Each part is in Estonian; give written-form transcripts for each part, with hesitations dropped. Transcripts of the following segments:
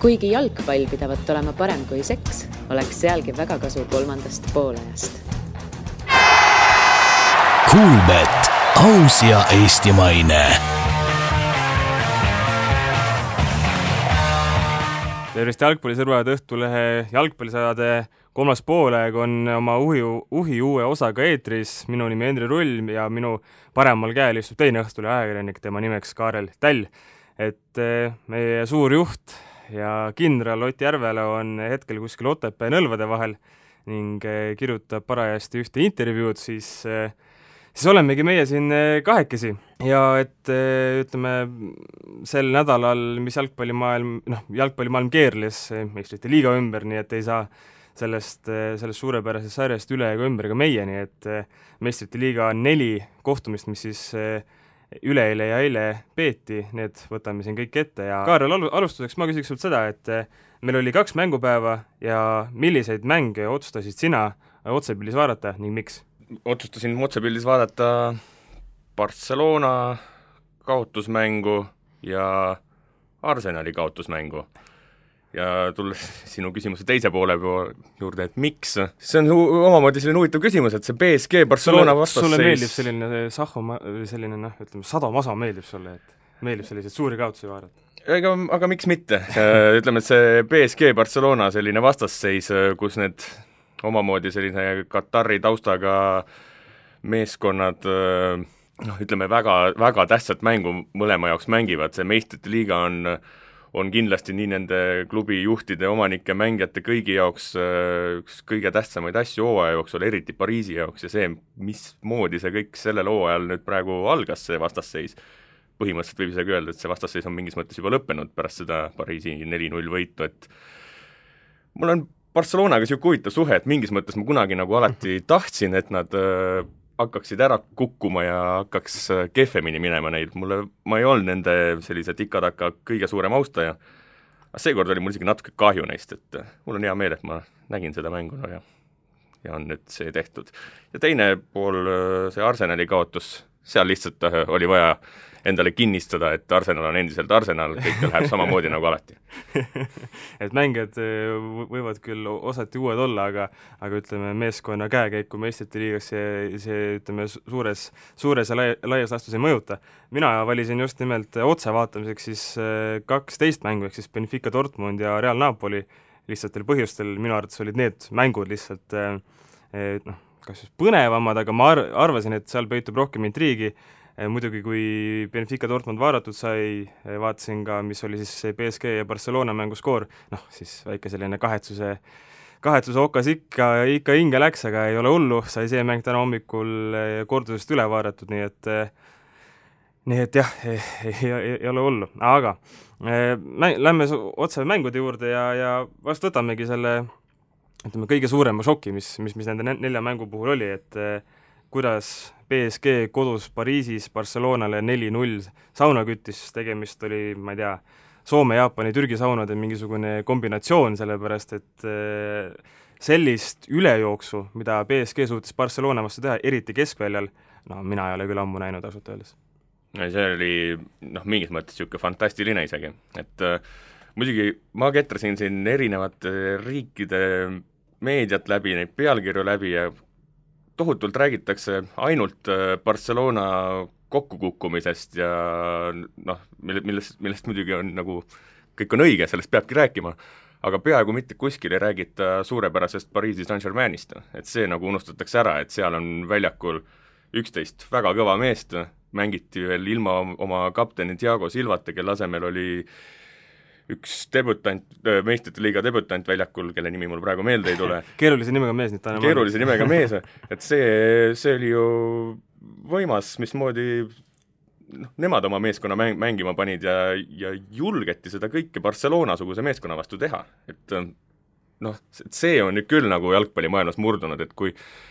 Kuigi jalgpall pidavat olema parem kui seks, oleks sealgi väga kasu kolmandast poolajast. Kuulbet, aus ja eestimaine. Tervist jalgpallisõrvad Õhtulehe jalgpallisaade kolmas poolaeg on oma uhi uue osaga eetris. Minu nimi Hendri Rull ja minu paremal käel istub teine Õhtulehe ajakirjanik, tema nimeks Kaarel Tall. Et meie suur juht ja kindral Ott Järvela on hetkel kuskil Otepää Nõlvade vahel ning kirjutab parajasti ühte intervjuud, siis olemegi meie siin kahekesi. Ja et ütleme, sel nädalal, mis jalgpallimaailm keerles meistrite liiga ümber, nii et ei saa sellest suurepärasest sarjast üle ega ümber ka meie, nii et meistrite liiga 4 kohtumist, mis siis üleeile ja eile peeti, need võtame siin kõik ette. Ja Kaarel, alustuseks ma küsiks sult seda, et meil oli 2 mängupäeva ja milliseid mänge otsustasid sina otsepildis vaadata ning miks? Otsustasin otsepildis vaadata Barcelona kaotusmängu ja Arsenali kaotusmängu. Ja tulles sinu küsimuse teise poole juurde, et miks? See on omamoodi selline huvitav küsimus, et see PSG Barcelona vastasseis... Sulle meeldib selline sadamasa meeldib sulle, et meeldib selliseid suuri kaotusi vaadata? Aga miks mitte? Ütleme, et see PSG Barcelona selline vastasseis, kus need omamoodi selline Katari taustaga meeskonnad ütleme, väga, väga tähtsat mängu mõlema jaoks mängivad. See meistrite liiga on kindlasti nii nende klubi juhtide, omanike, mängijate kõigi jaoks üks kõige tähtsamaid asju hooaja jooksul, eriti Pariisi jaoks, ja see, mismoodi see kõik sellel hooajal nüüd praegu algas, see vastasseis. Põhimõtteliselt võib isegi öelda, et see vastasseis on mingis mõttes juba lõppenud pärast seda Pariisi 4-0 võitu, et mul on Barcelonaga siuke huvitav suhe, et mingis mõttes ma kunagi nagu alati tahtsin, et nad hakkaksid ära kukkuma ja hakkaks kehvemini minema neid. Ma ei olnud nende sellise tikataka kõige suurem austaja. Aga seekord oli mul isegi natuke kahju neist, et mul on hea meel, et ma nägin seda mängu ja on nüüd see tehtud. Ja teine pool, see Arsenali kaotus, seal lihtsalt oli vaja endale kinnistada, et Arsenal on endiselt Arsenal, kõik läheb samamoodi nagu alati. Et mängijad võivad küll osati uued olla, aga ütleme, meeskonna käekäiku meistrite liigas see ütleme, suures ja laias lastus ei mõjuta. Mina valisin just nimelt otse vaatamiseks siis 12 mängu, ehk siis Benfica Dortmund ja Real Napoli lihtsatel põhjustel. Minu arvates olid need mängud lihtsalt kas just põnevamad, aga ma arvasin, et seal peitub rohkem intriigi. Muidugi, kui Benfica Dortmund vaadatud sai, vaatasin ka, mis oli siis PSG ja Barcelona mängu skoor, siis väike selline kahetsuse okas ikka hinge läks, aga ei ole hullu, sai see mäng täna hommikul kordusest üle vaadatud, nii et jah, ei ole hullu. Aga lähme otse mängude juurde ja vast võtamegi selle kõige suurema šoki, mis nende 4 mängu puhul oli, et kuidas PSG kodus Pariisis Barcelonale 4-0 sauna küttis, tegemist oli, ma ei tea, Soome, Jaapani, Türgi saunade mingisugune kombinatsioon, sellepärast et sellist ülejooksu, mida PSG suutis Barcelona vastu teha, eriti keskväljal, mina ei ole küll ammu näinud ausalt öeldes. See oli mingis mõttes siuke fantastiline isegi, et muidugi ma ketrasin siin erinevate riikide meediat läbi, neid pealkirju läbi ja tohutult räägitakse ainult Barcelona kokkukukkumisest ja millest muidugi on nagu, kõik on õige, sellest peabki rääkima, aga peaaegu mitte kuskil ei räägita suurepärasest Pariisi Saint-Germainist, et see nagu unustatakse ära, et seal on väljakul 11 väga kõva meest, mängiti veel ilma oma kapteni Thiago Silvata, kelle asemel oli üks meistrite liiga debutant väljakul, kelle nimi mul praegu meelde ei tule. Keerulise nimega mees, et see oli ju võimas, mismoodi nemad oma meeskonna mängima panid ja julgeti seda kõike Barcelona-suguse meeskonna vastu teha, et see on nüüd küll nagu jalgpallimaailmas murdunud, et kui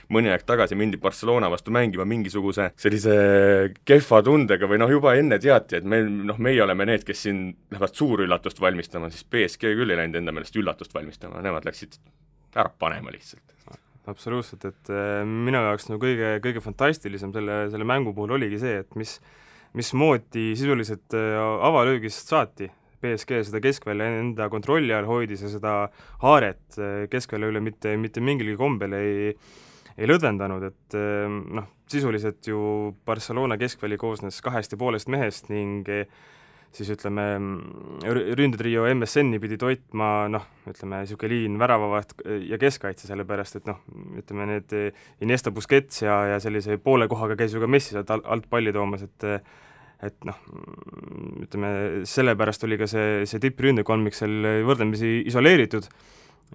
mõni aeg tagasi mindi Barcelona vastu mängima mingisuguse sellise kehva tundega või juba enne teati, et meie oleme need, kes siin lähevad suurüllatust valmistama, siis PSG küll ei läinud enda meelest üllatust valmistama, nemad läksid ära panema lihtsalt. Absoluutselt, et minu jaoks kõige fantastilisem selle mängu puhul oligi see, et mismoodi sisuliselt avalöögist saati BSG seda keskvälja enda kontrolli all hoidis ja seda haaret keskvälja üle mitte mingilgi kombel ei lõdvendanud, et noh, sisuliselt ju Barcelona keskväli koosnes 2,5 mehest ning siis ütleme, ründetrio MSN-i pidi toitma, noh, ütleme, niisugune liin väravavaht ja keskkaitse, sellepärast et noh, ütleme need Iniesta, Busquets ja sellise poole kohaga käis ju ka Messi sealt alt palli toomas, et noh, ütleme, sellepärast oli ka see tippründekolmik seal võrdlemisi isoleeritud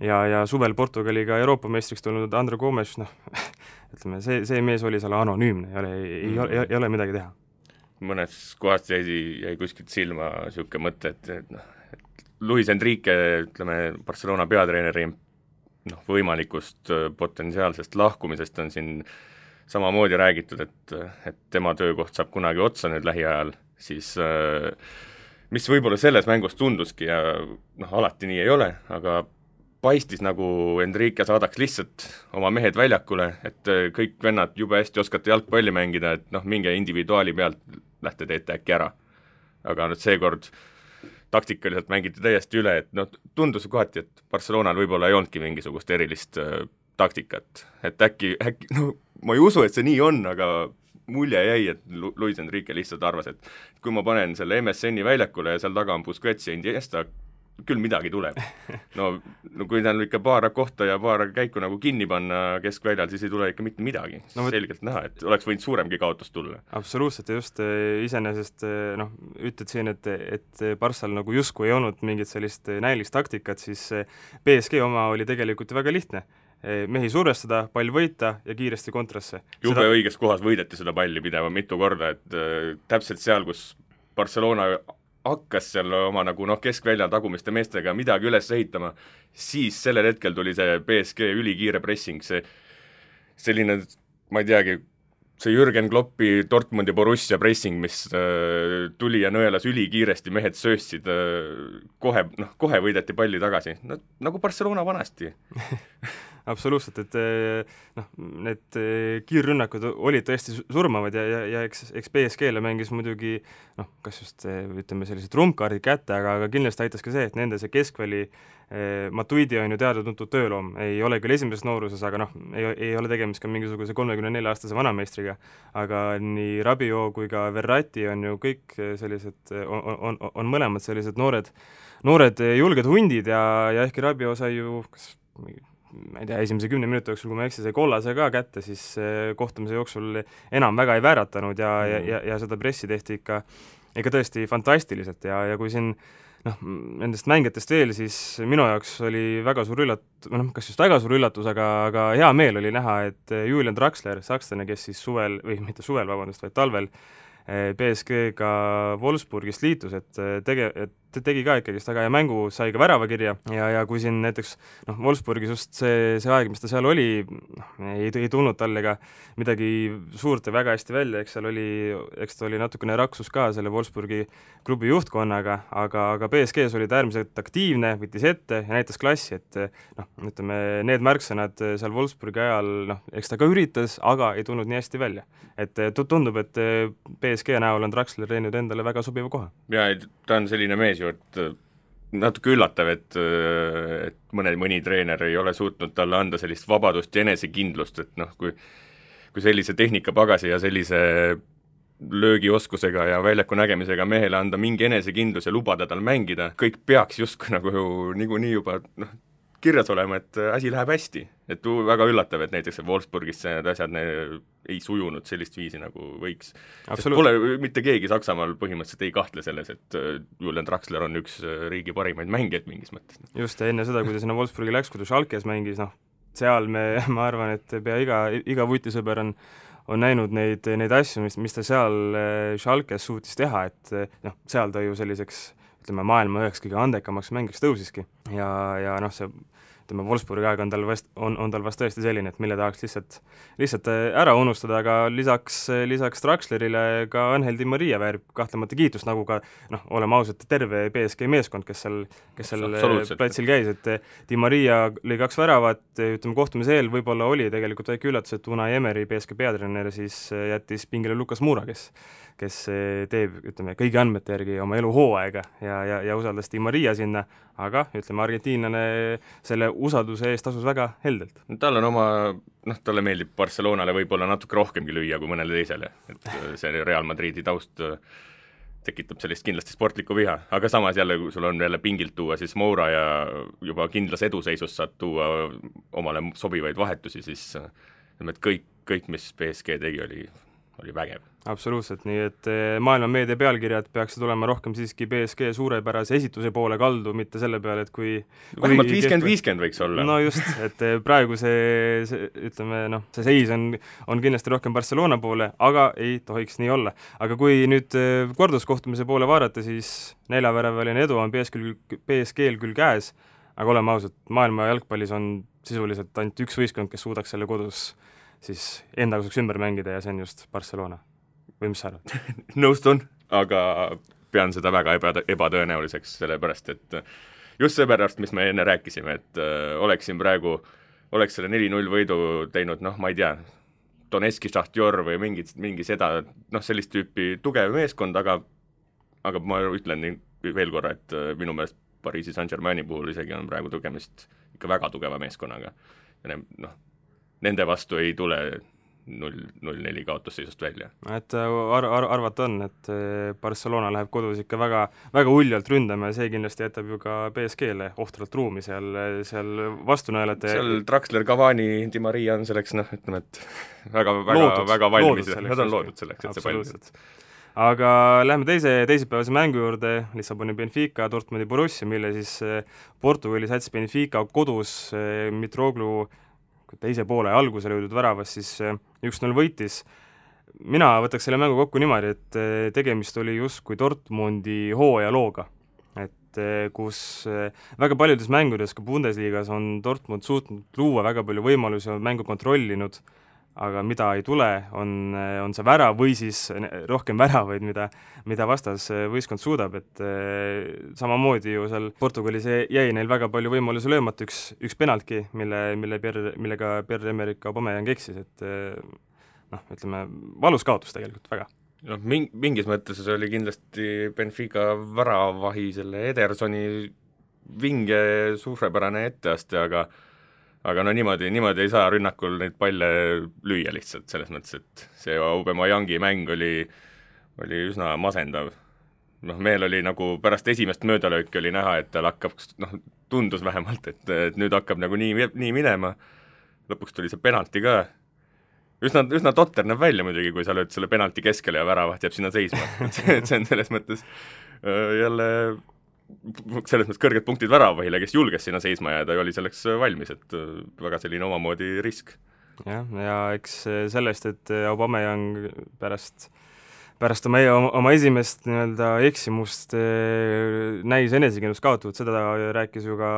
ja suvel Portugaliga Euroopa meistriks tulnud André Gomes, noh, ütleme, see mees oli seal anonüümne, ei ole midagi teha. Mõnes kohast jäi kuskilt silma niisugune mõte, et Luis Enrique, ütleme, Barcelona peatreeneri võimalikust potentsiaalsest lahkumisest on siin samamoodi räägitud, et tema töökoht saab kunagi otsa nüüd lähiajal, siis mis võib-olla selles mängus tunduski ja alati nii ei ole, aga paistis nagu Enrique saadaks lihtsalt oma mehed väljakule, et kõik vennad jube hästi oskate jalgpalli mängida, et minge individuaali pealt lähte teete äkki ära. Aga nüüd seekord taktikaliselt mängiti täiesti üle, et tundus kohati, et Barcelonal võib-olla ei olnudki mingisugust erilist taktikat, et äkki ma ei usu, et see nii on, aga mulje jäi, et Luis Enrique lihtsalt arvas, et kui ma panen selle MSN-i väljakule ja seal taga on Busquets ja Iniesta, küll midagi tuleb. No kui ta on ikka paar kohta ja paar käiku nagu kinni panna keskväljal, siis ei tule ikka mitte midagi. Selgelt näha, et oleks võinud suuremgi kaotus tulla. Absoluutselt, ja just iseenesest ütled siin, et Barssal nagu justkui ei olnud mingit sellist näilist taktikat, siis PSG oma oli tegelikult väga lihtne. Mehi survestada, pall võita ja kiiresti kontrasse. Jube õiges kohas võideti seda palli pideva mitu korda, et täpselt seal, kus Barcelona hakkas seal oma keskväljal tagumiste meestega midagi üles ehitama, siis sellel hetkel tuli see PSG ülikiire pressing, selline, ma ei teagi, see Jürgen Kloppi Dortmundi Borussia pressing, mis tuli ja nõelas ülikiiresti, mehed sööstsid, kohe võideti palli tagasi, nagu Barcelona vanasti. Absoluutselt, et need kiirrünnakud olid tõesti surmavad ja eks PSG-le mängis muidugi kas just, ütleme, sellised trumpkaardid kätte, aga kindlasti aitas ka see, et nende see keskväli Matuidi on ju teada-tuntud tööloom, ei ole küll esimeses nooruses, aga ei ole tegemist ka mingisuguse 34-aastase vanameistriga, aga nii Rabiot kui ka Verratti on ju kõik sellised, on mõlemad sellised noored julged hundid ja ehkki Rabiot sai ju ma ei tea, esimese 10 minuti jooksul, kui ma eksin, see kollase ka kätte, siis kohtumise jooksul enam väga ei vääratanud ja seda pressi tehti ikka tõesti fantastiliselt ja kui siin nendest mängijatest veel, siis minu jaoks oli väga suur kas just väga suur üllatus, aga hea meel oli näha, et Julian Draxler, sakslane, kes siis vaid talvel PSG-ga Wolfsburgist liitus, et tegi ka ikkagi väga hea mängu, sai ka väravakirja ja kui siin näiteks Wolfsburgis just see aeg, mis ta seal oli, ei tulnud talle ka midagi suurt ja väga hästi välja, eks ta oli natukene raksus ka selle Wolfsburgi klubi juhtkonnaga, aga PSG-s oli ta äärmiselt aktiivne, võttis ette ja näitas klassi, et ütleme, need märksõnad seal Wolfsburgi ajal, eks ta ka üritas, aga ei tulnud nii hästi välja. Et tundub, et PSG näol on Draxler teinud endale väga sobiva koha. Ja ta on selline mees ju, et natuke üllatav, et mõni treener ei ole suutnud talle anda sellist vabadust ja enesekindlust, et kui sellise tehnikapagasi ja sellise löögioskusega ja väljaku nägemisega mehele anda mingi enesekindlus ja lubada tal mängida, kõik peaks justkui niikuinii juba kirjas olema, et asi läheb hästi. Et väga üllatav, et näiteks Wolfsburgis need asjad ei sujunud sellist viisi, nagu võiks. Pole mitte keegi Saksamaal põhimõtteliselt ei kahtle selles, et Julian Draxler on üks riigi parimaid mängijaid mingis mõttes. Just, ja enne seda, kui ta sinna Wolfsburgi läks, kui ta Schalkes mängis, seal ma arvan, et pea iga vutisõber on näinud neid asju, mis ta seal Schalkes suutis teha, et seal ta ju selliseks, ütleme, maailma üheks kõige andekamaks mängiks tõusiski ja see ütleme, Wolfsburgi aeg on tal vast tõesti selline, et mille tahaks lihtsalt ära unustada, aga lisaks Draxlerile ka Angel Di Maria väärib kahtlemata kiitust, nagu ka oleme ausad, terve BSG meeskond, kes seal platsil käis, et Di Maria lõi 2 väravat, ütleme, kohtumise eel võib-olla oli tegelikult väike üllatus, et Unai Emery, BSG peatreener, siis jättis pingile Lukas Moura, kes teeb, ütleme, kõigi andmete järgi oma eluhooaega ja usaldas Di Maria sinna, aga ütleme, argentiinlane selle usalduse eest tasus väga heldelt. Tal on talle meeldib Barcelonale võib-olla natuke rohkemgi lüüa kui mõnele teisele, et see Real Madridi taust tekitab sellist kindlasti sportlikku viha, aga samas jälle, kui sul on jälle pingilt tuua, siis Moura ja juba kindlas eduseisus saad tuua omale sobivaid vahetusi, siis et kõik, mis PSG tegi, oli vägev. Absoluutselt, nii et maailma meedia pealkirjad peaksid olema rohkem siiski PSG suurepärase esituse poole kaldu, mitte selle peale, et kui vähemalt 50-50 võiks olla. No just, et praegu see ütleme, see seis on kindlasti rohkem Barcelona poole, aga ei tohiks nii olla. Aga kui nüüd korduskohtumise poole vaadata, siis 4-väraväline edu on PSG-l küll käes, aga oleme ausad, maailma jalgpallis on sisuliselt ainult üks võistkond, kes suudaks selle kodus siis enda kasuks ümber mängida ja see on just Barcelona. Või mis sa arvad? Nõustun, aga pean seda väga ebatõenäoliseks, sellepärast et just seepärast, mis me enne rääkisime, et oleks selle 4-0 võidu teinud, ma ei tea, Donetski Šahtjor või mingi seda, sellist tüüpi tugev meeskond, aga ma ütlen veel korra, et minu meelest Pariisi Saint-Germaini puhul isegi on praegu tegemist ikka väga tugeva meeskonnaga. Ja nende vastu ei tule 0-4 kaotusseisust välja. Et arvata on, et Barcelona läheb kodus ikka väga, väga uljalt ründama ja see kindlasti jätab ju ka PSG-le ohtralt ruumi seal vastunäelete. Seal Draxler, Cavani, Di Maria on selleks, ütleme, et väga valmis. Nad on loodud selleks, et see valmis. Aga lähme teisipäevase mängu juurde, Lissaboni Benfica, Dortmundi Borussia, mille siis Portugali sats Benfica kodus Mitroglou teise poole algusele jõudnud väravas siis 1-0 võitis. Mina võtaks selle mängu kokku niimoodi, et tegemist oli justkui Dortmundi hooajalooga, et kus väga paljudes mängudes, ka Bundesligas, on Dortmund suutnud luua väga palju võimalusi, on mängu kontrollinud, aga mida ei tule, on see värav või siis rohkem väravaid, mida vastas võistkond suudab, et samamoodi ju seal Portugalis jäi neil väga palju võimalusi löömata, üks penaltki, millega Pierre-Emerick Aubameyang eksis, et ütleme, valus kaotus tegelikult väga. Mingis mõttes oli kindlasti Benfica väravahi selle Edersoni vinge suurepärane etteaste, aga niimoodi ei saa rünnakul neid palle lüüa lihtsalt, selles mõttes, et see Aubemeyangi mäng oli üsna masendav. Meil oli nagu pärast esimest möödalööki oli näha, et tal hakkab, tundus vähemalt, et nüüd hakkab nagu nii minema, lõpuks tuli see penalti ka, üsna totter näeb välja muidugi, kui sa lööd selle penalti keskele ja väravat jääb sinna seisma, et see on selles mõttes jälle kõrged punktid väravahile, kes julges sinna seisma jääda ja oli selleks valmis, et väga selline omamoodi risk. Ja eks sellest, et Aubameyang pärast oma esimest eksimust näis enesekindlust kaotavat, seda rääkis ju ka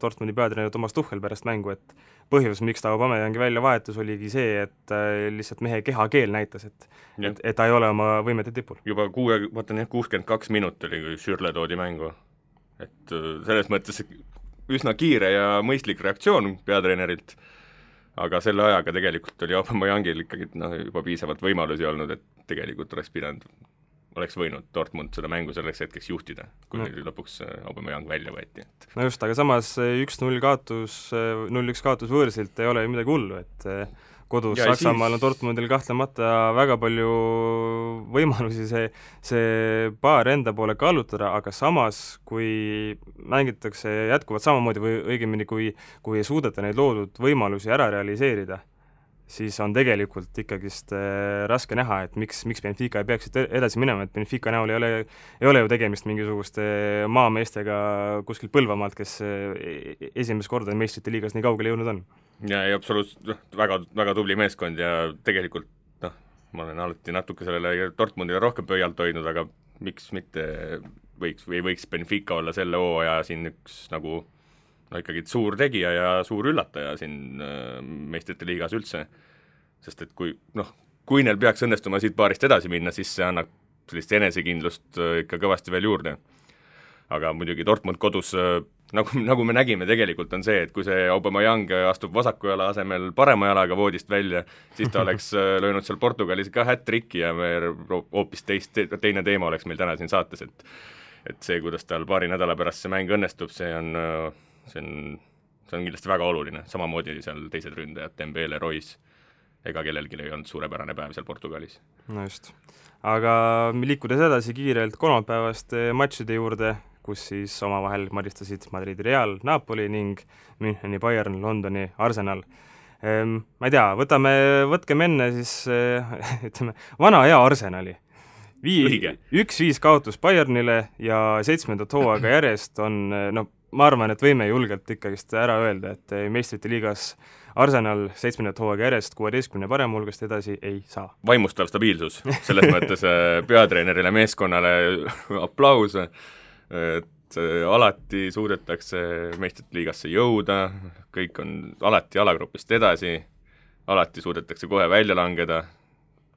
Dortmundi peatreener Thomas Tuchel pärast mängu, et põhjus, miks ta Aubameyangi välja vahetus, oligi see, et lihtsalt mehe kehakeel näitas, et ta ei ole oma võimete tipul. Juba 62 minut oli, kui Schürrle toodi mängu. Et selles mõttes üsna kiire ja mõistlik reaktsioon peatreenerilt, aga selle ajaga tegelikult oli Aubameyangil ikkagi juba piisavalt võimalusi olnud, et tegelikult oleks võinud Dortmund seda mängu selleks hetkeks juhtida, kui lõpuks Aubameyang välja võeti. No just, aga samas 1-0 kaotus, 0-1 kaotus võõrsilt ei ole midagi hullu, et kodus ja Saksamaal on Dortmundil kahtlemata väga palju võimalusi see paar enda poole kallutada, aga samas, kui mängitakse jätkuvalt samamoodi või õigemini, kui ei suudeta neid loodud võimalusi ära realiseerida, siis on tegelikult ikkagist raske näha, et miks Benfica ei peaks edasi minema, et Benfica näol ei ole ju tegemist mingisuguste maameestega kuskilt Põlvamaalt, kes esimest korda meistrite liigas nii kaugele jõudnud on. Ja absoluutselt väga, väga tubli meeskond ja tegelikult ma olen alati natuke sellele Dortmundile rohkem pöialt hoidnud, aga miks mitte võiks Benfica olla selle hooaja siin üks nagu no ikkagi suur tegija ja suur üllataja siin meistrite liigas üldse, sest et kui neil peaks õnnestuma siit paarist edasi minna, siis see annab sellist enesekindlust ikka kõvasti veel juurde. Aga muidugi Dortmund kodus, nagu me nägime tegelikult, on see, et kui see Aubameyang astub vasaku jala asemel parema jalaga voodist välja, siis ta oleks löönud seal Portugalis ka hat-tricki ja me hoopis teine teema oleks meil täna siin saates, et see, kuidas tal paari nädala pärast see mäng õnnestub, see on kindlasti väga oluline, samamoodi seal teised ründajad, Dembele, Royce, ega kellelgi ei olnud suurepärane päev seal Portugalis. No just. Aga liikudes edasi kiirelt kolmapäevaste matšide juurde, kus siis omavahel maristasid Madridi Real, Napoli ning Müncheni Bayern, Londoni Arsenal. Ma ei tea, võtkem enne siis, ütleme, vana hea Arsenali. 1-5 kaotus Bayernile ja 7. hooaega järjest on, ma arvan, et võime julgelt ikkagist ära öelda, et meistrite liigas Arsenal 7. hooaega järjest 16 parem hulgast edasi ei saa. Vaimustav stabiilsus, selles mõttes peatreenerile, meeskonnale aplaus, et alati suudetakse meistrite liigasse jõuda, kõik on alati alagrupist edasi, alati suudetakse kohe välja langeda.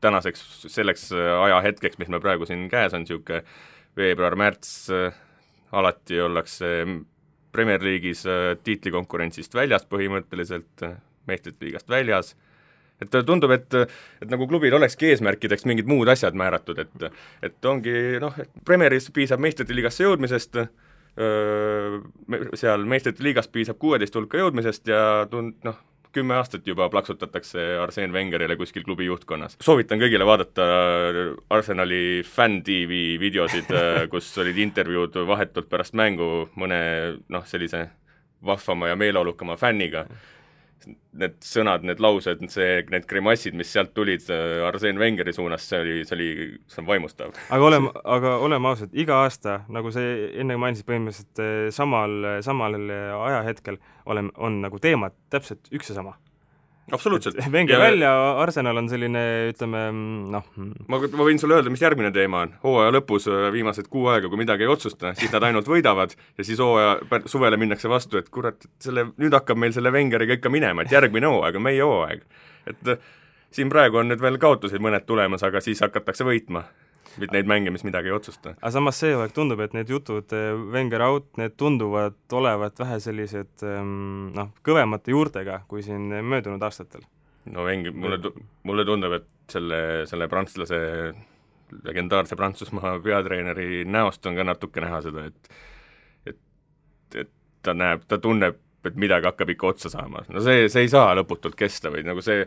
Tänaseks selleks ajahetkeks, mis me praegu siin käes on, niisugune veebruar-märts, alati ollakse Premier League'is tiitlikonkurentsist väljas põhimõtteliselt, meistrite liigast väljas, et tundub, et nagu klubil olekski eesmärkideks mingid muud asjad määratud, et ongi, et Premieris piisab meistrite liigasse jõudmisest, seal meistrite liigast piisab 16 hulka jõudmisest ja 10 aastat juba plaksutatakse Arsène Wengerile kuskil klubi juhtkonnas. Soovitan kõigile vaadata Arsenali fan-TV videosid, kus olid intervjuud vahetult pärast mängu mõne sellise vahvama ja meeleolukama fänniga. Need sõnad, need laused, need grimassid, mis sealt tulid Arsène Wengeri suunas, see on vaimustav. Aga oleme ausad, iga aasta, nagu see enne mainisid põhimõtteliselt samal ajahetkel on nagu teemad täpselt üks ja sama. Absoluutselt. Wenger välja, Arsenal on selline, ütleme, Ma võin sulle öelda, mis järgmine teema on. Hooaja lõpus viimased 6 aega, kui midagi ei otsusta, siis nad ainult võidavad ja siis suvele minnakse vastu, et kurat, nüüd hakkab meil selle Wengeriga ikka minema, et järgmine hooaeg on meie hooaeg. Et siin praegu on nüüd veel kaotuseid mõned tulemas, aga siis hakatakse võitma. Neid mänge, mis midagi ei otsusta. Aga samas see hooaeg tundub, et need jutud Wenger out, need tunduvad olevat vähe sellised kõvemate juurtega kui siin möödunud aastatel. No Wenger, mulle tundub, et selle prantslase, legendaarse Prantsusmaa peatreeneri näost on ka natuke näha seda, et ta tunneb, et midagi hakkab ikka otsa saama. No see ei saa lõputult kesta või nagu see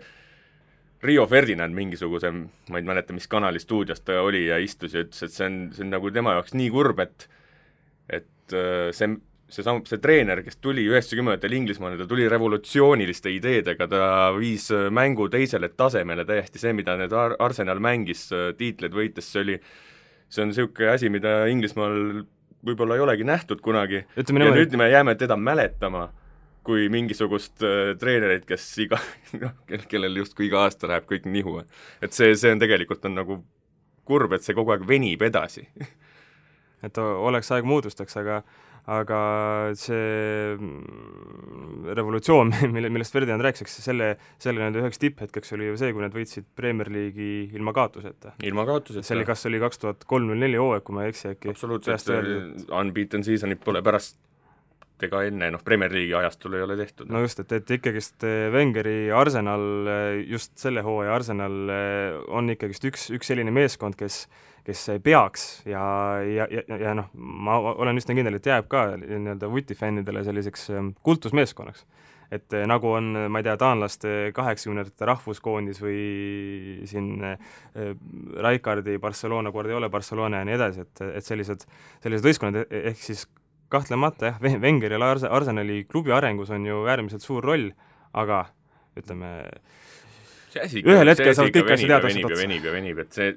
Rio Ferdinand mingisuguse, ma ei mäleta, mis kanali stuudios ta oli ja istus ja ütles, et see on nagu tema jaoks nii kurb, et see treener, kes tuli 90-ndatel Inglismaale, ta tuli revolutsiooniliste ideedega, ta viis mängu teisele tasemele täiesti see, mida need Arsenal mängis tiitleid võites, see on niisugune asi, mida Inglismaal võib-olla ei olegi nähtud kunagi. Ja nüüd me jääme teda mäletama kui mingisugust treenerit, kes kellel justkui iga aasta läheb kõik nihu. Et see on tegelikult on nagu kurb, et see kogu aeg venib edasi. Et oleks aeg muutustaks, aga see revolutsioon, millest Ferdinand rääks, selle nende üheks tipphetkeks oli ju see, kui nad võitsid Premier League'i ilma kaotuseta. Ilma kaotuseta. See oli, kas oli 2003-04 hooaeg, kui ma ei eksi äkki. Absoluutselt, unbeaten seasonit pole pärast ega enne, Premier League'i ajastul ei ole tehtud. No just, et ikkagist Wengeri Arsenal, just selle hooaja Arsenal on ikkagist üks selline meeskond, kes peaks ja ma olen üsna kindel, et jääb ka nii-öelda vutifännidele selliseks kultusmeeskonnaks. Et nagu on, ma ei tea, taanlaste 80-ndate rahvuskoondis või siin Rijkaardi Barcelona, Guardiola Barcelona ja nii edasi, et sellised võistkonnad ehk siis kahtlemata, Wengeri ja Arsenali klubi arengus on ju äärmiselt suur roll, aga ütleme, ühel hetkel saavad kõik asja teada venib, et see,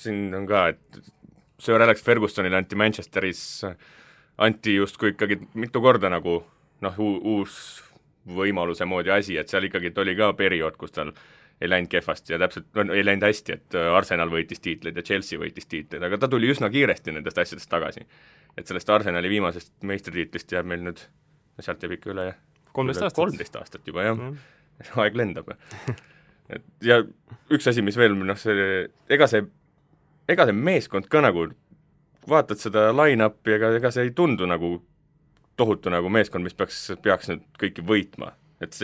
siin on ka, et Sir Alex Fergusonile anti Manchesteris, anti justkui ikkagi mitu korda nagu, uus võimaluse moodi asi, et seal ikkagi oli ka periood, kus tal ei läinud kehvasti ja täpselt, ei läinud hästi, et Arsenal võitis tiitleid ja Chelsea võitis tiitleid, aga ta tuli üsna kiiresti nendest asjadest tagasi. Et sellest Arsenali viimasest meistritiitlist jääb meil nüüd sealt jääb ikka üle 13 aastat juba, jah. Aeg lendab. Ja üks asi, mis veel, ega see meeskond ka nagu, vaatad seda line-upi, ega see ei tundu nagu tohutu nagu meeskond, mis peaks nüüd kõiki võitma. Et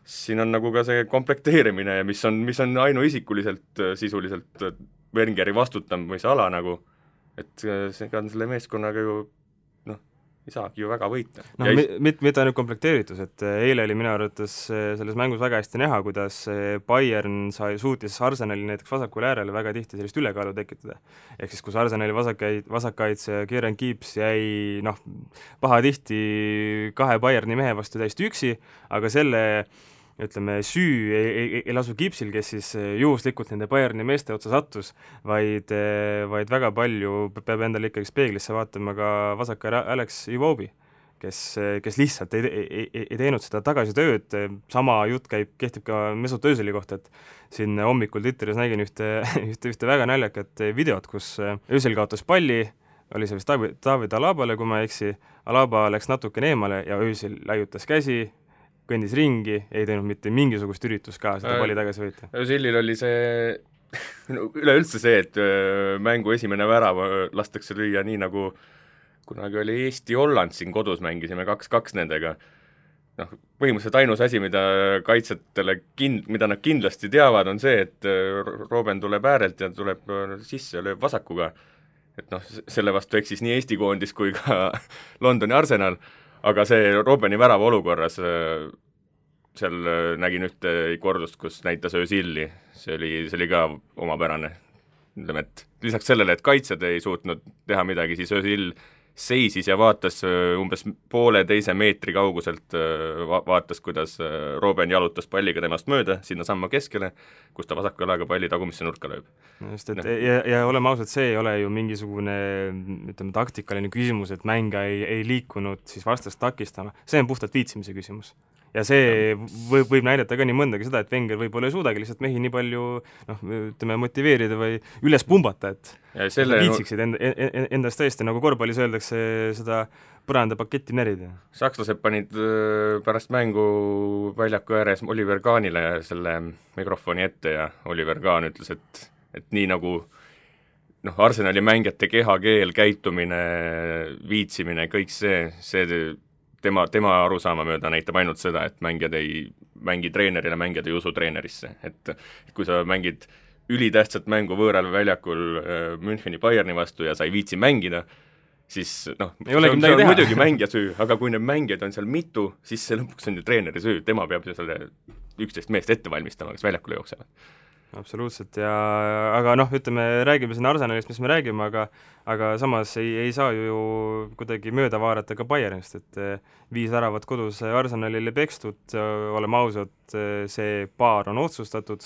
siin on nagu ka see komplekteerimine, mis on ainuisikuliselt sisuliselt Wengeri vastutamise ala nagu, et see on selle meeskonnaga ju ei saagi ju väga võita. Mitte ainult komplekteeritus, et eile oli minu arvates selles mängus väga hästi näha, kuidas Bayern suutis Arsenali näiteks vasakul äärele väga tihti sellist ülekaalu tekitada. Ehk siis, kus Arsenali vasakkaitse Kieran Gibbs jäi pahatihti 2 Bayerni mehe vastu täiesti üksi, aga selle süü ei lasu Gibbsil, kes siis juhuslikult nende Bayerni meeste otsa sattus, vaid väga palju peab endale ikkagi peeglisse vaatama ka vasaka Alex Iwobi, kes lihtsalt ei teinud seda tagasitööd. Sama jutt kehtib ka Mesut Özili kohta, et siin hommikul Twitteris nägin ühte väga naljakat videot, kus Özil kaotas palli, oli see vist David Alabale, kui ma ei eksi, Alaba läks natukene eemale ja Özil laiutas käsi, kõndis ringi, ei teinud mitte mingisugust üritust ka seda palli tagasi võita. Özilil oli see üleüldse see, et mängu esimene värav lastakse lüüa nii nagu kunagi oli Eesti-Holland siin kodus, mängisime 2-2 nendega. Põhimõtteliselt ainus asi, mida kaitsetele mida nad kindlasti teavad, on see, et Robben tuleb äärelt ja tuleb sisse ja lööb vasakuga. Et selle vastu eksis nii Eesti koondis kui ka Londoni Arsenal, aga see Robbeni värava olukorras, seal nägin ühte kordust, kus näitas Özili, see oli ka omapärane. Ütleme, et lisaks sellele, et kaitsjad ei suutnud teha midagi, siis Özil seisis ja vaatas umbes 1,5 meetri kauguselt, vaatas, kuidas Robben jalutas palliga temast mööda sinna samma keskele, kus ta vasaku jalaga palli tagumisse nurka lööb. Just, ja oleme ausad, see ei ole ju mingisugune taktikaline küsimus, et mänga ei liikunud siis vastast takistama, see on puhtalt viitsimise küsimus. Ja see võib näidata ka nii mõndagi seda, et Wenger võib-olla ei suudagi lihtsalt mehi nii palju motiveerida või üles pumbata, et viitsiksid endast tõesti, nagu korvpallis öeldakse, seda põrandapaketti närida. Sakslased panid pärast mängu väljaku ääres Oliver Kahnile selle mikrofoni ette ja Oliver Kahn ütles, et nii nagu Arsenali mängijate kehakeel, käitumine, viitsimine, kõik see tema arusaama mööda näitab ainult seda, et mängijad ei mängi treenerile, mängijad ei usu treenerisse. Et kui sa mängid ülitähtsat mängu võõral väljakul Müncheni Bayerni vastu ja sa ei viitsi mängida, siis see on muidugi mängija süü, aga kui need mängijad on seal mitu, siis see lõpuks on ju treeneri süü, tema peab ju selle 11 meest ette valmistama, kes väljakule jooksevad. Absoluutselt, aga räägime siin Arsenalist, mis me räägime, aga samas ei saa ju kuidagi mööda vaadata ka Bayernist, et 5 väravat kodus Arsenalile pekstud, oleme ausad, see paar on otsustatud,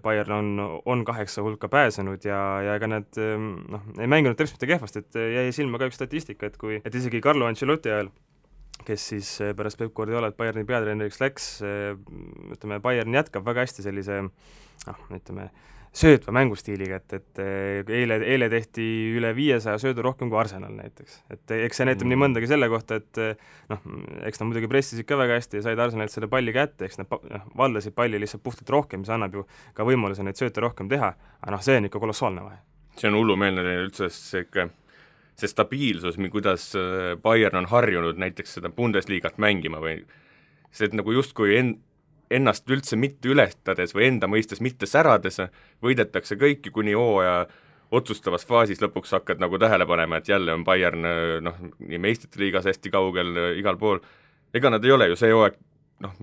Bayern on 8 hulka pääsenud ja ega nad ei mänginud teps mitte kehvast, et jäi silma ka üks statistika, et isegi Carlo Ancelotti ajal, kes siis pärast Pep Guardiolat Bayerni peatreeneriks läks, Bayern jätkab väga hästi sellise söötva mängustiiliga, et eile tehti üle 500 söödu rohkem kui Arsenal näiteks. Et eks see näitab nii mõndagi selle kohta, et eks nad muidugi pressisid ka väga hästi ja said Arsenalilt selle palli kätte, eks nad valdasid palli lihtsalt puhtalt rohkem, mis annab ju ka võimaluse neid sööte rohkem teha, aga see on ikka kolossaalne vahe. See on hullumeelne üldse see stabiilsus, kuidas Bayern on harjunud näiteks seda Bundesliigat mängima või see, et nagu justkui ennast üldse mitte ületades või enda mõistes mitte särades, võidetakse kõiki kuni hooaja otsustavas faasis lõpuks hakkad nagu tähele panema, et jälle on Bayern nii meistrite liigas hästi kaugel igal pool. Ega nad ei ole ju see hooaeg,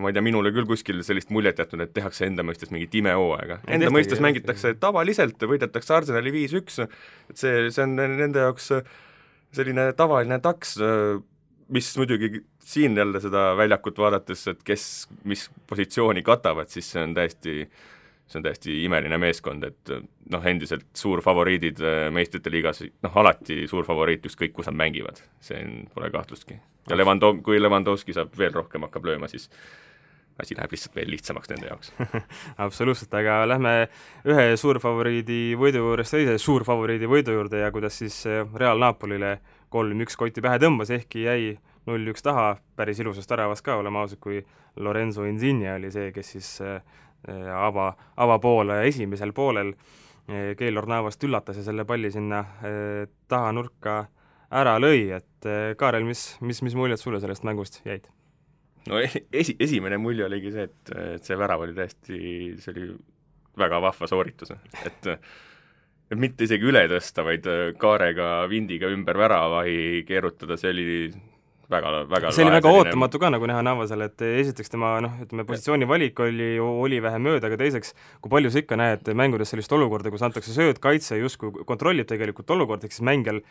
ma ei tea, minule küll kuskil sellist muljet jätnud, et tehakse enda mõistes mingit imehooaega. Enda mõistes mängitakse tavaliselt, võidetakse Arsenali 5-1, et see on nende jaoks selline tavaline taks, mis muidugi siin jälle seda väljakut vaadates, et mis positsiooni katavad, siis see on täiesti imeline meeskond, et endiselt suur favoriidid meistrite liigas, alati suur favoriit ükskõik, kus nad mängivad, see pole kahtlustki. Ja kui Lewandowski saab veel rohkem hakkab lööma, siis asi läheb lihtsalt veel lihtsamaks nende jaoks. Absoluutselt, aga lähme ühe suurfavoriidi võidu juurest teise suurfavoriidi võidu juurde ja kuidas siis Real Napolile 3-1 kotti pähe tõmbas, ehkki jäi 0-1 taha, päris ilusast väravast ka, oleme ausad, kui Lorenzo Insigne oli see, kes siis avapoole esimesel poolel Keylor Navast üllatas ja selle palli sinna taha nurka ära lõi, et Kaarel, mis muljed sulle sellest mängust jäid? No esimene mulje oligi see, et see värav oli täiesti, see oli väga vahva sooritus, et mitte isegi üle tõsta, vaid kaarega, vindiga ümber väravahi keerutada, see oli väga see oli väga ootamatu ka nagu näha Navasel, et esiteks tema positsiooni valik oli vähe mööda, aga teiseks, kui palju sa ikka näed mängudes sellist olukorda, kus antakse sööd, kaitse justkui kontrollib tegelikult olukord, siis mängijal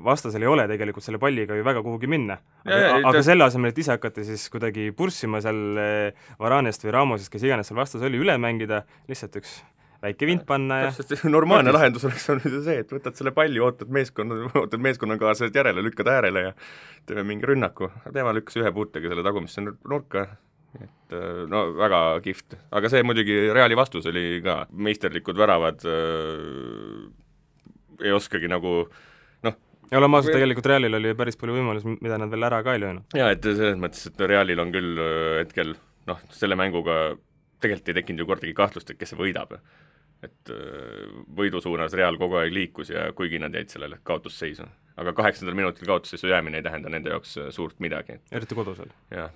vastasel ei ole tegelikult selle palliga ju väga kuhugi minna. Aga selle asemel, et ise hakata siis kuidagi purssima seal Varanest või Ramosest, kes iganes seal vastas oli, üle mängida, lihtsalt üks väike vint panna ja normaalne lahendus oleks olnud see, et võtad selle palli, ootad meeskonnakaaslased järele, lükkad äärele ja teeme mingi rünnaku. Tema lükkas ühe puutega selle tagumisse nurka, et no väga kihvt. Aga see muidugi Reali vastus oli ka, meisterlikud väravad ei oskagi nagu ja oleme ausad, tegelikult Realil oli päris palju võimalus, mida nad veel ära ka ei löönud. Jaa, et selles mõttes, et Realil on küll hetkel selle mänguga tegelikult ei tekkinud ju kordagi kahtlust, et kes see võidab. Et võidu suunas Real kogu aeg liikus ja kuigi nad jäid sellele kaotusseisu. Aga 8. minutil kaotusseisu jäämine ei tähenda nende jaoks suurt midagi. Eriti kodusel. Jah,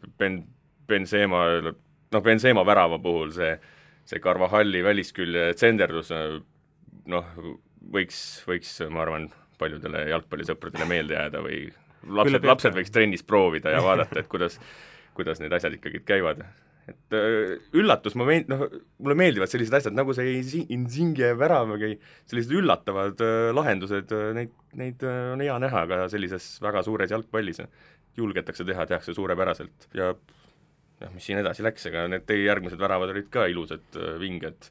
Benzema värava puhul see Carvajalli väliskülje tsenderdus võiks, ma arvan, paljudele jalgpallisõpradele meelde jääda või lapsed võiks trennis proovida ja vaadata, et kuidas need asjad ikkagi käivad. Et üllatus, mulle meeldivad sellised asjad, nagu see Insigne värav, sellised üllatavad lahendused, neid on hea näha ka sellises väga suures jalgpallis. Julgetakse teha, tehakse suurepäraselt ja mis siin edasi läks, ega need järgmised väravad olid ka ilusad vinged.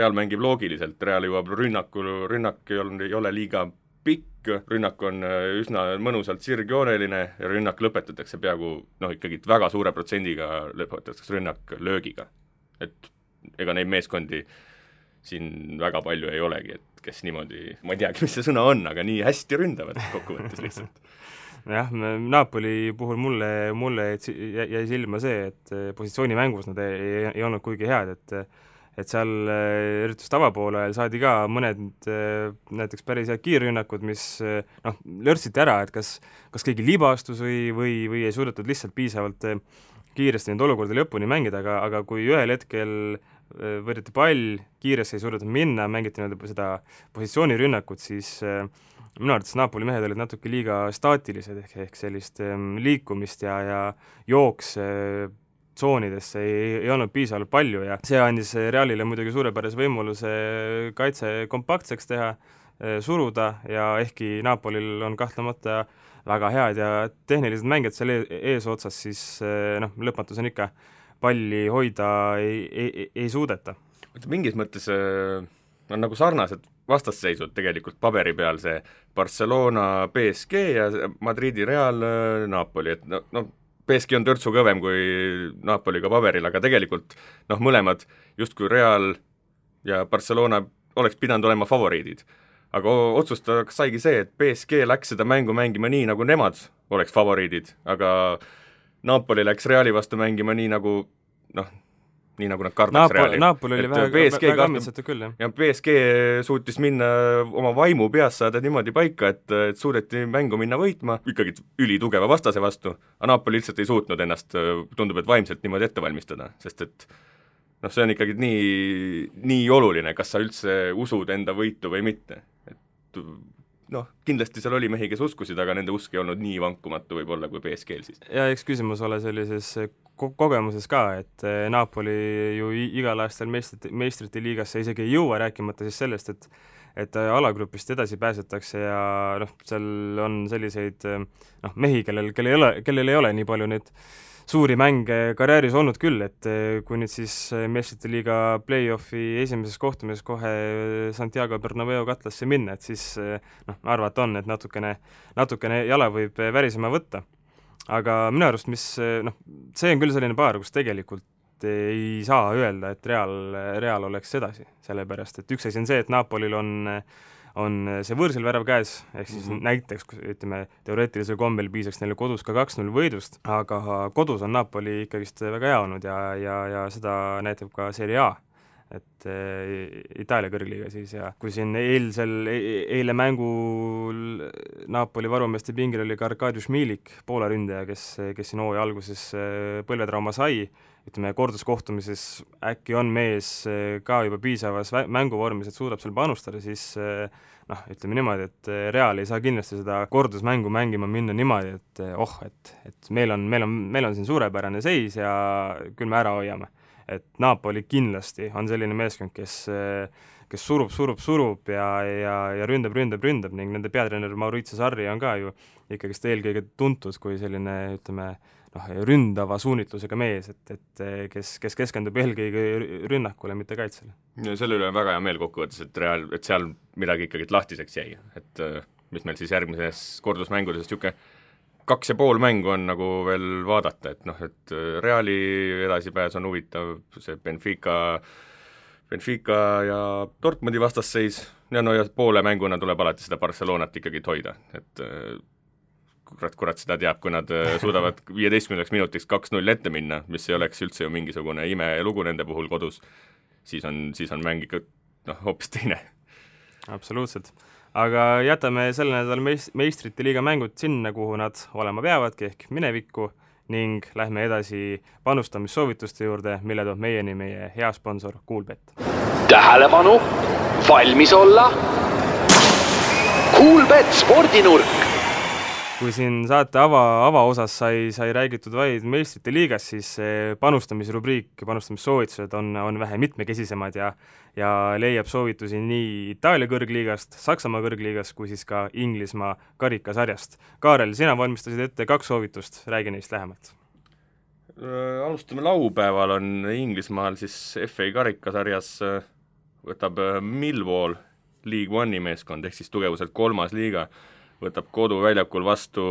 Real mängib loogiliselt, Real jõuab rünnak ei ole liiga pikk, rünnak on üsna mõnusalt sirgjooneline ja rünnak lõpetatakse peaaegu, ikkagi väga suure protsendiga lõpetatakse rünnak löögiga. Et ega neid meeskondi siin väga palju ei olegi, et kes niimoodi, ma ei teagi, mis see sõna on, aga nii hästi ründavad kokkuvõttes lihtsalt. Jah, Napoli puhul mulle jäi silma see, et positsioonimängus nad ei olnud kuigi head, et seal eriti tavapoole saadi ka mõned näiteks päris head kiirrünnakud, mis lörtsiti ära, et kas keegi libastus või ei suudetud lihtsalt piisavalt kiiresti neid olukordi lõpuni mängida, aga kui ühel hetkel võrdeti pall, kiiresti ei suudetud minna, mängiti seda positsioonirünnakut, siis minu arvates Napoli mehed olid natuke liiga staatilised, ehk sellist liikumist ja jooks tsoonidesse ei olnud piisavalt palju ja see andis Realile muidugi suurepärase võimaluse kaitse kompaktseks teha, suruda ja ehkki Napolil on kahtlemata väga head ja tehnilised mängijad seal eesotsas, siis lõpmatus on ikka palli hoida ei suudeta. Mingis mõttes on nagu sarnased vastasseisud tegelikult paberi peal, see Barcelona, PSG ja Madridi Real, Napoli, et PSG on törtsu kõvem kui Napoliga paberil, aga tegelikult mõlemad justkui Real ja Barcelona oleks pidanud olema favoriidid. Aga otsustajaks saigi see, et PSG läks seda mängu mängima nii, nagu nemad oleks favoriidid, aga Napoli läks Reali vastu mängima nii nagu nad kardaks Reali. Napoli oli väga ammitsatu küll, jah. Ja PSG suutis minna oma vaimu peas saada niimoodi paika, et suudeti mängu minna võitma, ikkagi ülitugeva vastase vastu, aga Napoli lihtsalt ei suutnud ennast, tundub, et vaimselt niimoodi ette valmistada, sest et see on ikkagi nii oluline, kas sa üldse usud enda võitu või mitte. Et kindlasti seal oli mehi, kes uskusid, aga nende usk ei olnud nii vankumatu võib-olla kui PSG-l siis. Ja eks küsimus ole sellises kogemuses ka, et Napoli ju igal aastal meistrite liigasse isegi ei jõua, rääkimata siis sellest, et alagrupist edasi pääsetakse ja seal on selliseid mehi, kellel ei ole nii palju neid suuri mänge karjääris olnud küll, et kui nüüd siis meistrite liiga play-offi esimeses kohtumises kohe Santiago Bernabeu katlasse minna, et siis arvata on, et natukene jala võib värisema võtta. Aga minu arust, see on küll selline paar, kus tegelikult ei saa öelda, et Real oleks edasi, sellepärast et üks asi on see, et Napolil on on see võõrsil värav käes, ehk siis näiteks, ütleme, teoreetilisel kombel piisaks neile kodus ka 2-0 võidust, aga kodus on Napoli ikkagist väga hea olnud ja seda näitab ka Serie A, et Itaalia kõrgliiga siis, ja kui siin eile mängul Napoli varumeeste pingil oli ka Arkadiusz Milik, Poola ründaja, kes siin hooaja alguses põlvetrauma sai, ütleme, korduskohtumises äkki on mees ka juba piisavas mänguvormis, et suudab seal panustada, siis ütleme niimoodi, et Real ei saa kindlasti seda kordusmängu mängima minna niimoodi, et meil on siin suurepärane seis ja küll me ära hoiame. Et Napoli kindlasti on selline meeskond, kes surub ja ründab ning nende peatreener Maurizio Sarri on ka ju ikkagist eelkõige tuntud kui selline, ütleme, ründava suunitlusega mees, et kes keskendub eelkõige rünnakule, mitte kaitsele. Ja selle üle on väga hea meel kokkuvõttes, et seal midagi ikkagi lahtiseks jäi, et mis meil siis järgmises kordusmängudes niisugune 2,5 mängu on nagu veel vaadata, et Reali edasipääs on huvitav, see Benfica ja Dortmundi vastasseis ja poole mänguna tuleb alati seda Barcelonat ikkagi hoida, et kurat seda teab, kui nad suudavad 15 minutiks 2-0 ette minna, mis ei oleks üldse ju mingisugune imelugu nende puhul kodus, siis on mäng ikka hoopis teine. Absoluutselt. Aga jätame selle nädal meistrite liiga mängud sinna, kuhu nad olema peavadki, ehk minevikku, ning lähme edasi panustamissoovituste juurde, mille toob meieni meie hea sponsor Coolbet. Tähelepanu, valmis olla Coolbet spordinurk. Kui siin saate avaosas sai räägitud vaid meistrite liigas, siis panustamisrubriik, panustamissoovitused on vähe mitmekesisemad ja leiab soovitusi nii Itaalia kõrgliigast, Saksamaa kõrgliigast kui siis ka Inglismaa karikasarjast. Kaarel, sina valmistasid ette 2 soovitust, räägi neist lähemalt. Alustame laupäeval, on Inglismaal siis FA karikasarjas võtab Millwall League One'i meeskond, ehk siis tugevuselt 3. liiga, võtab koduväljakul vastu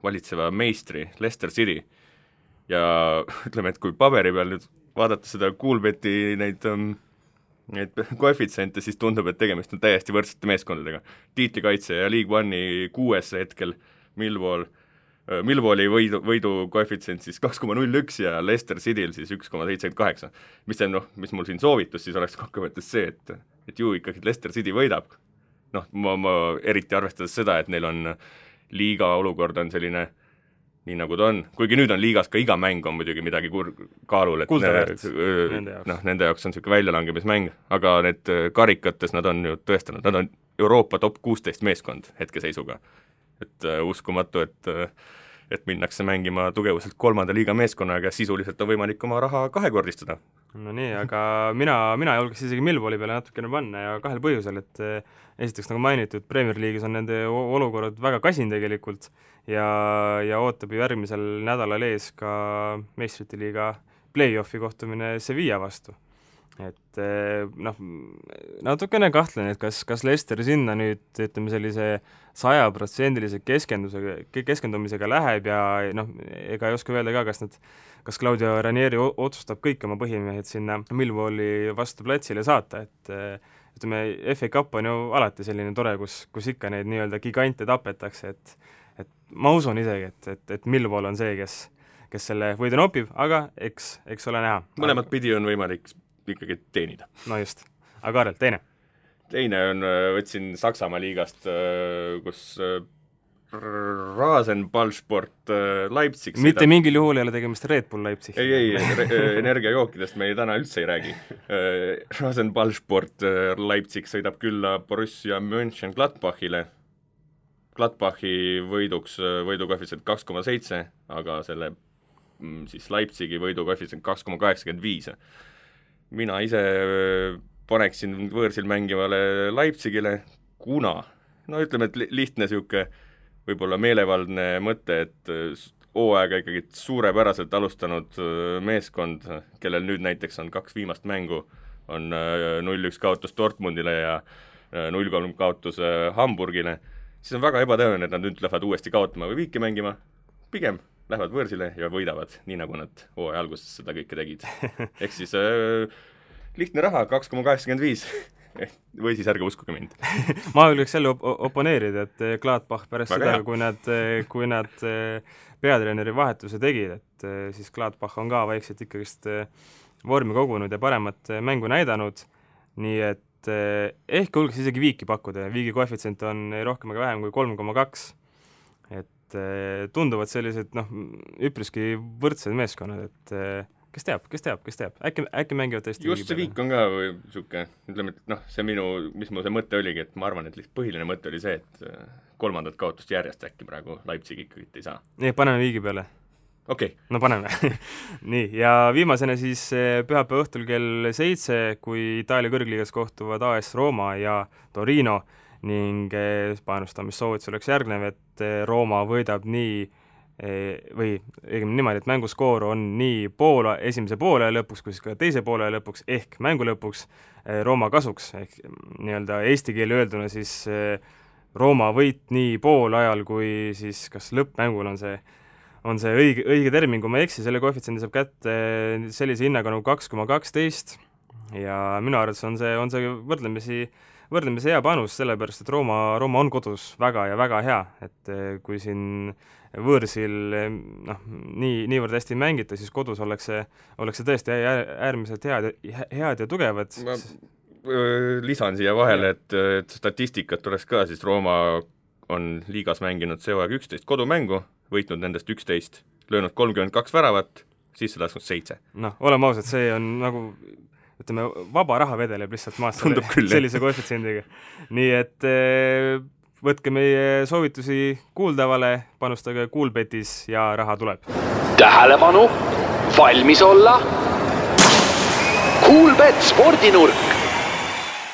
valitseva meistri Leicester City ja ütleme, et kui paberi peal nüüd vaadata seda Coolbeti neid koefitsiente, siis tundub, et tegemist on täiesti võrdsete meeskondadega. Tiitlikaitse ja League One'i 6. hetkel Millwalli võidu koefitsient siis 2,01 ja Leicester Cityl siis 1,78. Mis mul siin soovitus siis oleks kokkuvõttes see, et ju ikkagi Leicester City võidab. Ma eriti arvestades seda, et neil on liiga olukord on selline nii nagu ta on, kuigi nüüd on liigas ka iga mäng on muidugi midagi kaalul, et nende jaoks on niisugune väljalangemismäng, aga need karikates nad on ju tõestanud, nad on Euroopa top 16 meeskond hetkeseisuga. Et uskumatu, et minnakse mängima tugevuselt 3. liiga meeskonnaga ja sisuliselt on võimalik oma raha 2-kordistada. No nii, aga mina julgeks isegi Millwalli peale natukene panna ja 2 põhjusel, et esiteks nagu mainitud, Premier League'is on nende olukorrad väga kasin tegelikult ja ootab ju järgmisel nädalal ees ka meistrite liiga play-offi kohtumine Sevilla vastu. Et natukene kahtlen, et kas Leicester sinna nüüd, ütleme, sellise 100% keskendumisega läheb ja ega ei oska öelda ka, kas Claudio Ranieri otsustab kõik oma põhimehed sinna Millwalli vastu platsile saata, et ütleme, FA Cup on ju alati selline tore, kus ikka neid nii-öelda gigante tapetakse, et ma usun isegi, et Millwall on see, kes selle võidu nopib, aga eks ole näha. Mõlemat pidi on võimalik ikkagi teenida. No just. Aga Kaarel, teine? Teine on, võtsin Saksamaa liigast, kus Rasenballsport Leipzig mitte mingil juhul ei ole tegemist Red Bull Leipzig. Ei, energiajookidest me täna üldse ei räägi. Rasenballsport Leipzig sõidab külla Borussia Mönchengladbachile. Gladbachi võidukoefitsient 2,7, aga selle siis Leipzigi võidukoefitsient 2,85. Mina ise paneksin võõrsil mängivale Leipzigile, kuna, ütleme, et lihtne siuke võib-olla meelevaldne mõte, et hooaega ikkagi suurepäraselt alustanud meeskond, kellel nüüd näiteks on 2 viimast mängu, on 0-1 kaotus Dortmundile ja 0-3 kaotus Hamburgile, siis on väga ebatõenäoline, et nad nüüd lähevad uuesti kaotama või viiki mängima, pigem lähevad võõrsile ja võidavad, nii nagu nad hooaja alguses seda kõike tegid. Ehk siis lihtne raha, 2,85. või siis ärge uskuge mind. Ma julgeks jälle oponeerida, et Gladbach pärast väga seda, kui nad peatreeneri vahetuse tegid, et siis Gladbach on ka vaikselt ikkagist vormi kogunud ja paremat mängu näidanud, nii et ehk julgeks isegi viiki pakkuda, viigi koefitsient on rohkem ega vähem kui 3,2, et tunduvad sellised üpriski võrdsed meeskonnad, et kes teab, äkki mängivad tõesti just see viik on ka või siuke, ütleme, et see mis mu see mõte oligi, et ma arvan, et lihtsalt põhiline mõte oli see, et kolmandat kaotust järjest äkki praegu Leipzig ikkagi ei saa. Nii, paneme viigi peale. Okei. No paneme. Nii, ja viimasena siis pühapäeva õhtul kell 7, kui Itaalia kõrgliigas kohtuvad AS Roma ja Torino ning panustamissoovitus oleks järgnev, et Roma võidab nii või õigemini niimoodi, et mänguskoor on nii esimese poole lõpuks kui siis ka teise poole lõpuks ehk mängu lõpuks Rooma kasuks, ehk nii-öelda eesti keeli öelduna siis Rooma võit nii poolajal kui siis kas lõppmängul on see õige termin, kui ma ei eksi, selle koefitsiendi saab kätte sellise hinnaga nagu 2,12 ja minu arvates on see võrdlemisi hea panus, sellepärast et Rooma on kodus väga ja väga hea, et kui siin võõrsil niivõrd hästi mängita, siis kodus oleks see tõesti äärmiselt head ja tugevad. Ma lisan siia vahele, et statistikat tuleks ka, siis Rooma on liigas mänginud see hooaeg 11 kodumängu, võitnud nendest 11, löönud 32 väravat, sisse lasknud 7. Oleme ausad, see on nagu ütleme, vaba raha vedeleb lihtsalt maast sellise koefitsiendiga. Nii et võtke meie soovitusi kuuldavale, panustage Kuulbetis ja raha tuleb. Tähelepanu, valmis olla. Kuulbet spordinurk.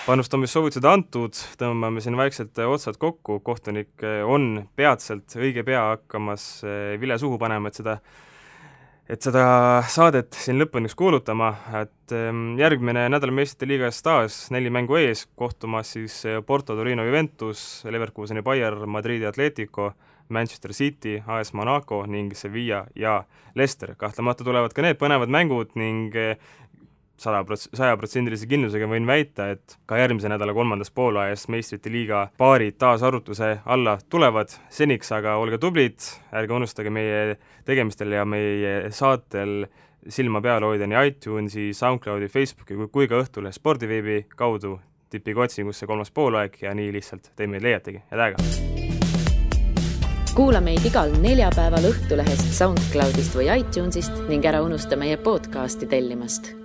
Panustamissoovitused antud, tõmbame siin vaikselt otsad kokku, kohtunik on peatselt õige pea hakkamas vile suhu panema, et seda saadet siin lõpuniks kuulutama, et järgmine nädal meistrite liigas taas 4 mängu ees, kohtumas siis Porto, Torino, Juventus, Leverkuseni Bayern, Madridi Atletico, Manchester City, AS Monaco ning Sevilla ja Leicester. Kahtlemata tulevad ka need põnevad mängud ning 100% kindlusega võin väita, et ka järgmise nädala 3. poolajas meistrite liiga paarid taas arutuse alla tulevad. Seniks aga olge tublid, ärge unustage meie tegemistel ja meie saatel silma peal hoida nii iTunesi, SoundCloudi, Facebooki kui ka Õhtulehe spordiveebi kaudu. Tippige otsingusse 3. poolaeg ja nii lihtsalt te meid leiategi. Head aega! Kuula meid igal neljapäeval Õhtulehest, SoundCloudist või iTunesist ning ära unusta meie podcasti tellimast.